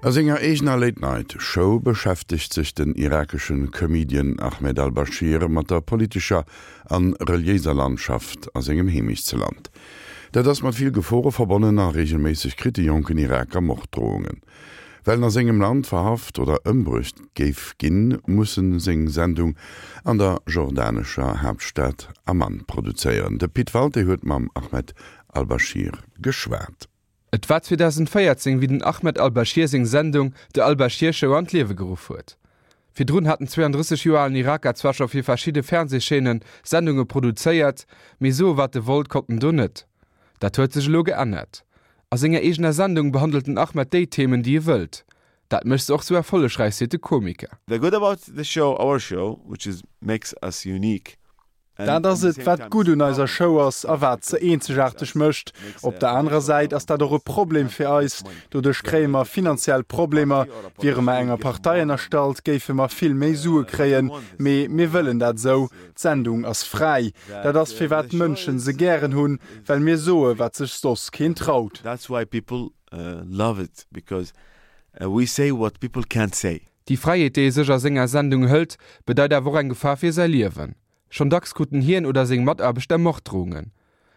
A senger eegener Late Night Show beschäftegt sech den irakeschen Comedian Ahmed al-Bashir mat der politescher an reliéiser Landschaft a sengem Heemechtsland. Dat ass mat vill Gefore verbonnen a reegelméisseg kritt de jonken Iraker Morddrohungen. Well en a sengem Land verhaft oder ëmbruecht géif ginn, muss en seng Sendung an der jordanescher Haaptstad Amman produzéieren. De Pit Walté huet mam Ahmed al-Bashir geschwat. Et war 2014, wéi den Ahmed al-Bashir seng Sendung The Al-Bashir Show an d'Liewe geruff huet. Virdrun hat den 32 Joer alen Iraker zwar scho fir verschidde Fernsehchaînen Sendunge produzéiert, mee soe wat e wollt konnt en do net. Dat huet sech elo geännert. A senger eegener Sendung behandelt den Ahmed déi Themen, déi e wëllt. Dat mécht se och sou erfollegräich, seet de Komiker. The good about the show, our show, which is makes us unique, Dat ass et, wat gutt un eiser Show ass a wat se eenzegaarteg mécht. Op der anerer Säit ass dat och e Problem fir eis. Doduerch kréie mer finanziell Problemer. Wiere mer enger Partei ënnerstallt, géife mer vill méi Sue kréien. Mee mir wëllen dat esou. D'Sendung ass fräi. Dat ass, firwat d'Mënschen se gären hunn, well mir soe wat sech soss keen traut. That's why people love it, because we say what people can't say. Déi Fräiheet, déi e sech a senger Sendung hëlt, bedeit awer och eng Gefahr fir säi Liewen. Schonn dacks kruten hien oder seng Mataarbechter Morddrohungen.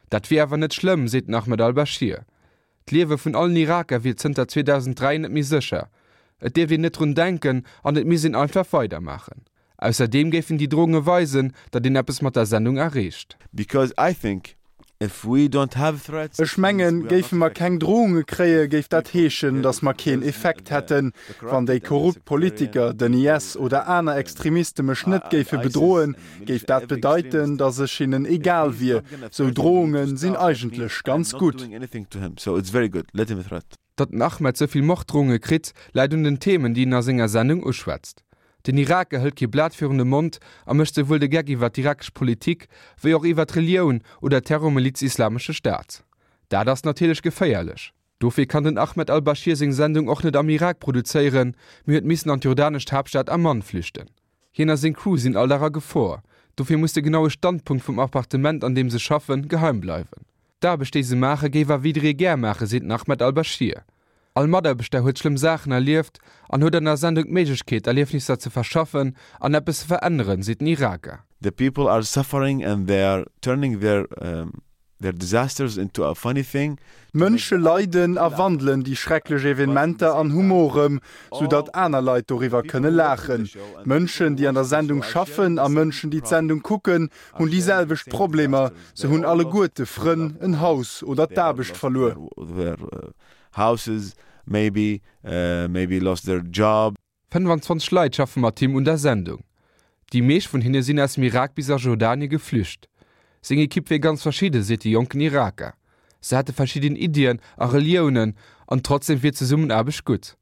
Dat wier awer net schlëmm, seet den Ahmed al-Bashir. D'Liewe vun allen Iraker wier zënter 2003 net méi sécher. Et dierft een net drun denken an et misst een einfach weidermaachen. Ausserdeem géifen déi Drohunge weisen, datt een eppes mat der Sendung erreecht. Because I think if we don't have threats. Ech mengen, géife mer keng Drohunge kréie géif dat heeschen, datt mer keen Effekt hätten. Wann déi korrupt Politiker, den IS oder aner Extremiste mech net géife bedroen, géif dat bedeiten, datt ech hinnen egal wier. Sou Drohunge sinn eigentlech ganz gutt. Datt den Ahmed sou vill Morddrohunge kritt, läit un den Themen, déi en a senger Sendung uschwätzt. Den Iraker hëlt kee Blat virun de Mond a mécht souwuel de Geck iwwer d'irakesch Politik, wéi och iwwer d'Relioun oder d'Terrormiliz Islamesche Staat. Dat ass natierlech geféierlech. Dofir kann den Ahmed al-Bashir seng Sendung och net am Irak produzéieren, mee huet missen an d'jordanescht Haaptstad Amman flüchten. Hien a seng Crew sinn all Dag a Gefor, dofir muss de genaue Standpunkt vum Appartement, an deem se schaffen, geheim bleiwen. D'Aarbecht, déi se maachen, géif awer jidderee gär maachen, seet den Ahmed Al-Bashir. All Mataarbechter huet schlëmm Saachen erlieft an huet an der Sendung d'Méiglechkeet, Erliefnisser ze verschaffen an eppes ze veränneren, seet den Iraker. The people are suffering and they are turning their their disasters into a funny thing. D'Mënsche leiden a wandelen déi schrecklech Evenementer an Humor ëm, sou datt aner Leit doriwwer kënne laachen. D'Mënschen, déi an der Sendung schaffen a Mënschen, déi d'Sendung kucken, hunn déi selwecht Problemer, se hunn alleguerte Frënn, en Haus oder d'Aarbecht verluer. 25 Leit schaffe mat him un der Sendung. Déi meescht vun hinne sinn aus dem Irak bis a Jordanie geflücht. Seng Ekipp wier ganz verschidde, seet de jonken Iraker. Se hätte verschidden Iddien a Reliounen an trotzdeem wier d'Zesummenaarbecht gutt.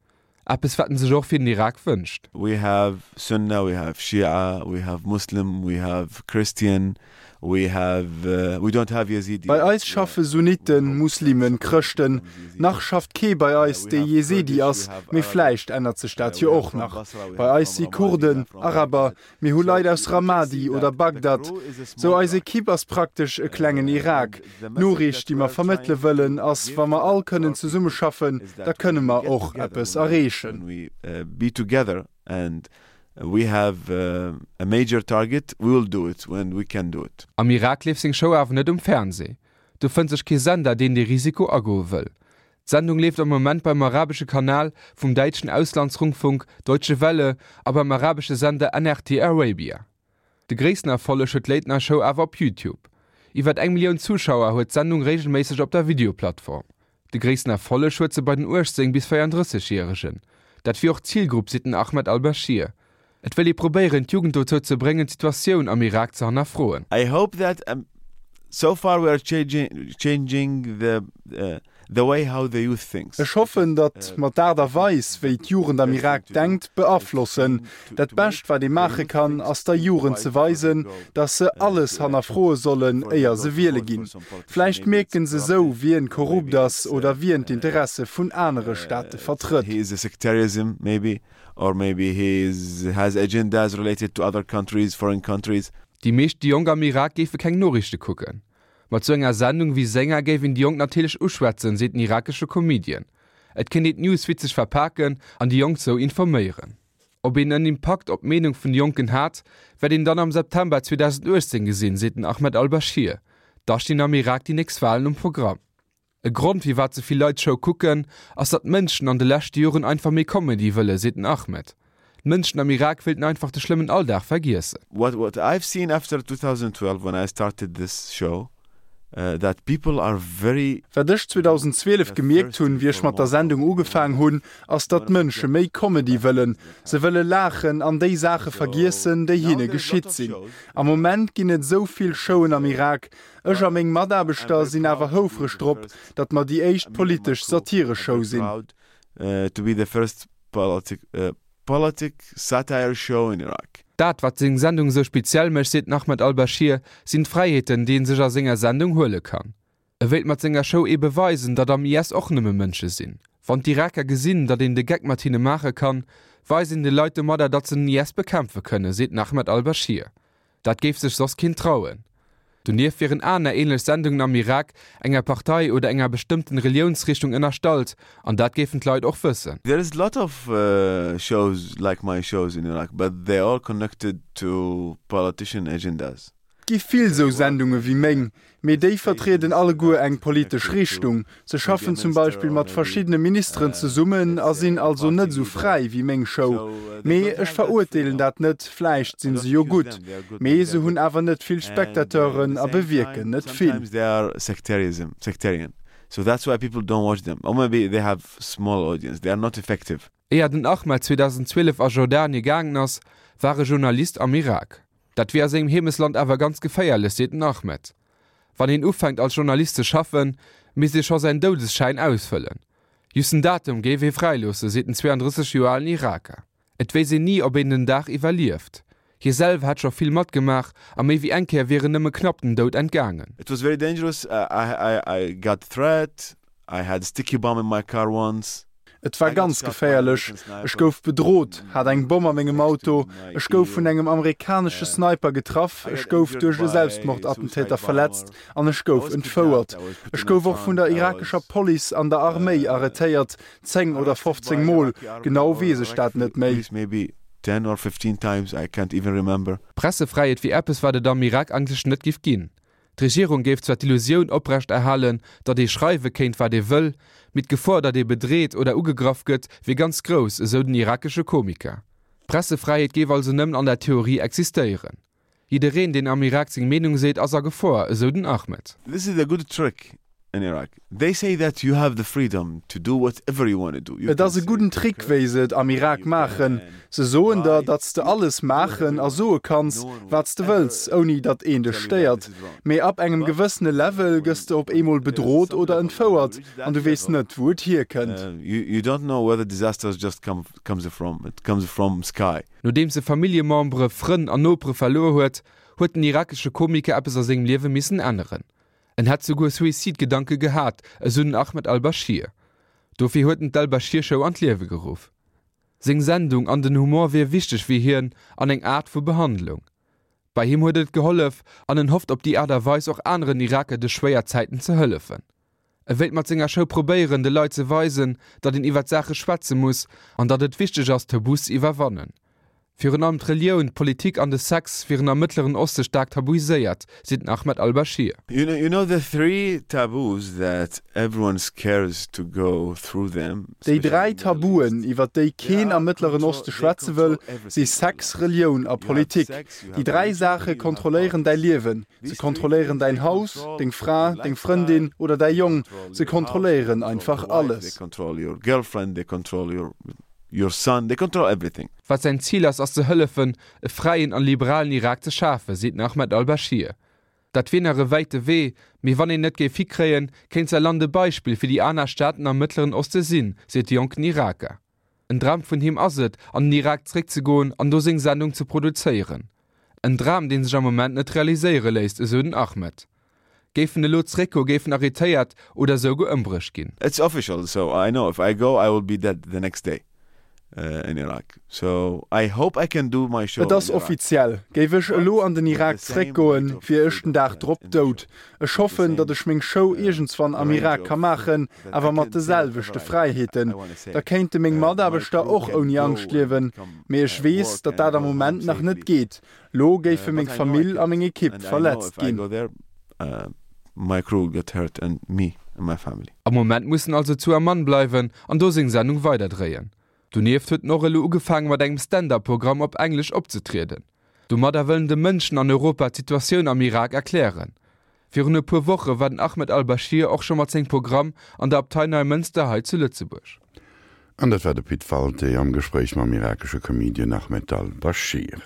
Eppes wat en sech och fir den Irak wënscht. We have Sunna, we have Shia, we have Muslim, we have Christian, we have, we don't have Yazidi. Bei eis schaffe Sunniten, Muslimen, Chrëschten. Nach schafft kee bei eis, dee Yezidi ass, mee vläicht ännert sech dat jo och nach. Bei eis si Kurden, Araber, Mir hu Leit aus Ramadi oder Bagdad. Sou eis Ekipp ass praktesch e klengen Irak. D'Noriicht, déi mer vermëttele wëllen, ass, wa mer all kënnen zesummeschaffen, da kënne mer och eppes erreechen. Am Irak leeft seng Show awer net um Fernsee. Do fënnt sech kee Sender, deen dee Risiko agoe wëll. D'Sendung leeft am Moment beim arabesche Kanal vum däitschen Auslandsrundfunk Deutsche Welle a beim arabesche Sender NRT Arabia. De gréissten Erfolleg huet d'Late Night Show awer op Youtube. Iwwer eng Millioun Zuschauer huet d'Sendung reegelméisseg op der Videoplattform. De gréissten Erfolleg huet se bei den 18 bis 34 Järegen. Dat wier och d'Zilgrupp, seet den Ahmed Al-Bashir. Et wëll ee probéieren, d'Jugend dozou ze bréngen, d'Situatioun am Irak ze hannerfroen. I hope that so far we are changing the the way how the youth thinks. Ech hoffen, datt mer d'Aart a Weis, wéi d'Jugend am Irak denkt, beaflossen. Dat Bescht, wat ee maache kann, ass der Jugend ze weisen, datt se alles hannerfroe sollen, éier se wiele ginn. Vläicht mierken se sou, wien korrupt ass oder wien d'Interesse vun anere Staate vertrëtt. Or maybe he has agendas related to other countries, foreign countries. Déi meescht Jonk am Irak géife keng Noriichte kucken. Mat sou enger Sendung wéi senger géif een déi Jonk natierlech uschwätzen, seet den irakesche Comedian. Et kéint een d'News witzeg verpaken an déi Jonk sou informéieren. Ob een en Impakt op d'Meenung vun de Jonken hat, wäert een dann am September 2018 gesinn, seet den Ahmed al-Bashir. Da stinn am Irak déi nächst Walen um Programm. E Grond, firwat sou vill Leit d'Show kucken, ass datt d'Mënschen an de leschte Joren einfach méi Comedy wëlle, seet den Ahmed. D'Mënschen am Irak wéilten einfach de schlëmmen Alldag vergiessen. What what I've seen after 2012 when I started this show that people are very. Wat ech 2012 gemierkt hunn, wéi ech mat der Sendung ugefaang hunn, ass datt d'Mënsche méi Comedy wëllen. Se wëlle laachen an déi Saache vergiessen, déi hinne geschitt sinn. Am Moment ginn et esou vill Showen am Irak. Ech a meng Mataarbechter sinn awer houfreg drop, datt mer déi éischt politesch Satireshow sinn. Politic satire show in Iraq. Dat, wat seng Sendung esou speziell mécht, seet den Ahmed al-Bashir, sinn d'Fräiheeten, déi ee sech a senger Sendung huele kann. E wéilt mat senger Show eebe weisen, datt am IS och nëmme Mënsche sinn. Wann d'Iraker gesinn, datt een de Geck mat hinne maache kann, weist een de Leit domadder, datt se den IS bekämpfe kënnen, seet den Ahmed al-Bashir. Dat géif sech soss keen trauen. Donieft wieren aner ähnlech Sendungen am Irak enger Partei oder enger bestëmmten Reliounsrichtung ënnerstallt, an dat géifen d'Leit och wëssen. There is lot of shows like my shows in Iraq, but they all connected to politician agendas. Et gi vill sou Sendunge wéi meng, Mee déi vertrieden alleguer eng politesch Richtung. Se schaffen zum Beispill mat verschiddene Ministeren zesummen a sinn also net esou fräi wéi meng Show. Mee ech verurteelen dat net, vläicht sinn se jo gutt. Mee se hunn awer net vill Spectateuren a bewierken net vill. Éier den Ahmed 2012 a Jordanie gaangen ass, war e Journalist am Irak. Dat wier a sengem Heemesland awer ganz geféierlech, seet den Ahmed. Wann een ufänkt als Journalist ze schaffen, misst ee scho säin Doudesschäin ausfëllen. Just den Datum géif ee fräiloossen, seet den 32 Joer alen Iraker. Et wéisst een ni, ob een den Dag iwwerlieft. Hie selwer hätt scho vill matgemaach a méi wéi eng Kéier wier en nëmme knapp dem Doud entgaangen. It was very dangerous, I got threat, I had a sticky bomb in my car once. Et war ganz geféierlech. Ech gouf bedrot, hat eng Bomm a mengem Auto, ech gouf vun engem amerikanesche Sniper getraff, ech gouf duerch e Selbstmordattentäter verletzt an ech gouf entfouert. Ech gouf och vun der irakescher Police an der Arméi arrêtéiert, 10 oder 15 Mol, genau weess ech dat net méi. Pressefräiheet wier eppes, wat et am Irak eigentlech net giff ginn. D'Regierung géif zwar d'Illusioun oprecht erhalen, datt ee schreiwe kéint, wat ee wëll, mee d'Gefor, datt ee bedreet oder ugegraff gëtt, wier ganz grouss, esou den irakesche Komiker. D'Pressefräiheet géif also nëmmen an der Theorie existéieren. Jiddereen, deen am Irak seng Meenung seet, ass a Gefor, esou den Ahmed. This is a good trick in Iraq. They say that you have the freedom to do whatever you wanna do. Et ass e gudden Trick, wéi se et am Irak maachen. Se soen der, datt s de alles maachen a soe kanns, wat s de wëlls, ouni datt een dech stéiert. Mee ab engem gewëssene Level gëss de op eemol bedrot oder entfouert an du weess net, wou et hierkënnt. You don't know where the disasters just comes from. It comes from sky. Nodeems e Familljemembere, Frënn an Nopere verluer huet, huet den irakesche Komiker eppes a sengem Liewe missen änneren. En hätt souguer Suicide-Gedanke gehat, esou den Ahmed al-Bashir. Dofir huet en d'Al-Bashir-Show an d'Liewe geruff. Seng Sendung an den Humor wier wichteg fir hien an eng Aart vu Behandlung. Bei him huet et gehollef an en hofft op déi Aart a Weis och aneren Iraker duerch schwéier Zäiten ze hëllefen. E wéilt mat senger Show probéieren, de Leit ze weisen, datt een iwwer d'Saache schwätze muss an datt et wichteg ass, Tabus ze iwwerwannen. Virun allem d'Relioun, d'Politik an de Sex wieren am Mëttleren Oste staark tabuiséiert, seet den Ahmed al-Bashir. You know the three taboos that everyone scares to go through them, Déi 3 Tabuen, iwwer déi keen am Mëttleren Oste schwätze wëll, si Sex, Relioun a Politik. Déi 3 Saache kontrolléieren däi Liewen. Se kontrolléieren däin Haus, deng Fra, deng Frëndin oder däi Jong. Se kontrolléieren einfach alles. Your son, they control everything. Wat säin Zil ass, ass ze hëllefen, e fräien an liberalen Irak ze schafen, seet den Ahmed al-Bashir. Dat wier nach e wäite Wee, mee wann een et géif hikréien, kéint säi Land e Beispill fir déi aner Staaten am Mëttleren Oste sinn, seet de jonken Iraker. En Dram vun him ass et, an den Irak zeréckzegoen an do seng Sendung ze produzéieren. En Dram, dee sech am Moment net realiséiere léisst, esou den Ahmed. Géif en elo zeréckgoe géif en arrêtéiert oder esouguer ëmbruecht ginn. It's official, so I know if I go I will be dead the next day. In Iraq. So I hope I can do my show Et ass in Iraq. offiziell, Géif ech elo an den Irak zréckgoen, wier ech den Dag drop dout. Ech hoffen, datt ech meng Show iergendswann am Irak ka maachen, awer mat de selwechte Fräiheeten. Da kéinte meng Mataarbechter och ouni Angscht liewen. Mee ech weess, datt dat am Moment nach net geet. Lo géife meng Famill a meng Ekipp verletzt ginn. Am Moment muss en also zu Amman bleiwen an do seng Sendung weiderdréien. Donieft huet en och elo ugefaange mat engem Stand-up-Programm op Englesch opzetrieden. Domadder wëll en de Mënschen an Europa d'Situatioun am Irak erklären. Virun e puer Woche war den Ahmed al-Bashir och scho mat sengem Programm an der Abtei Neimënster hei zu Lëtzebuerg. An dat war de Pit Walté am Gespréich mam irakesche Comedian Ahmed al-Bashir.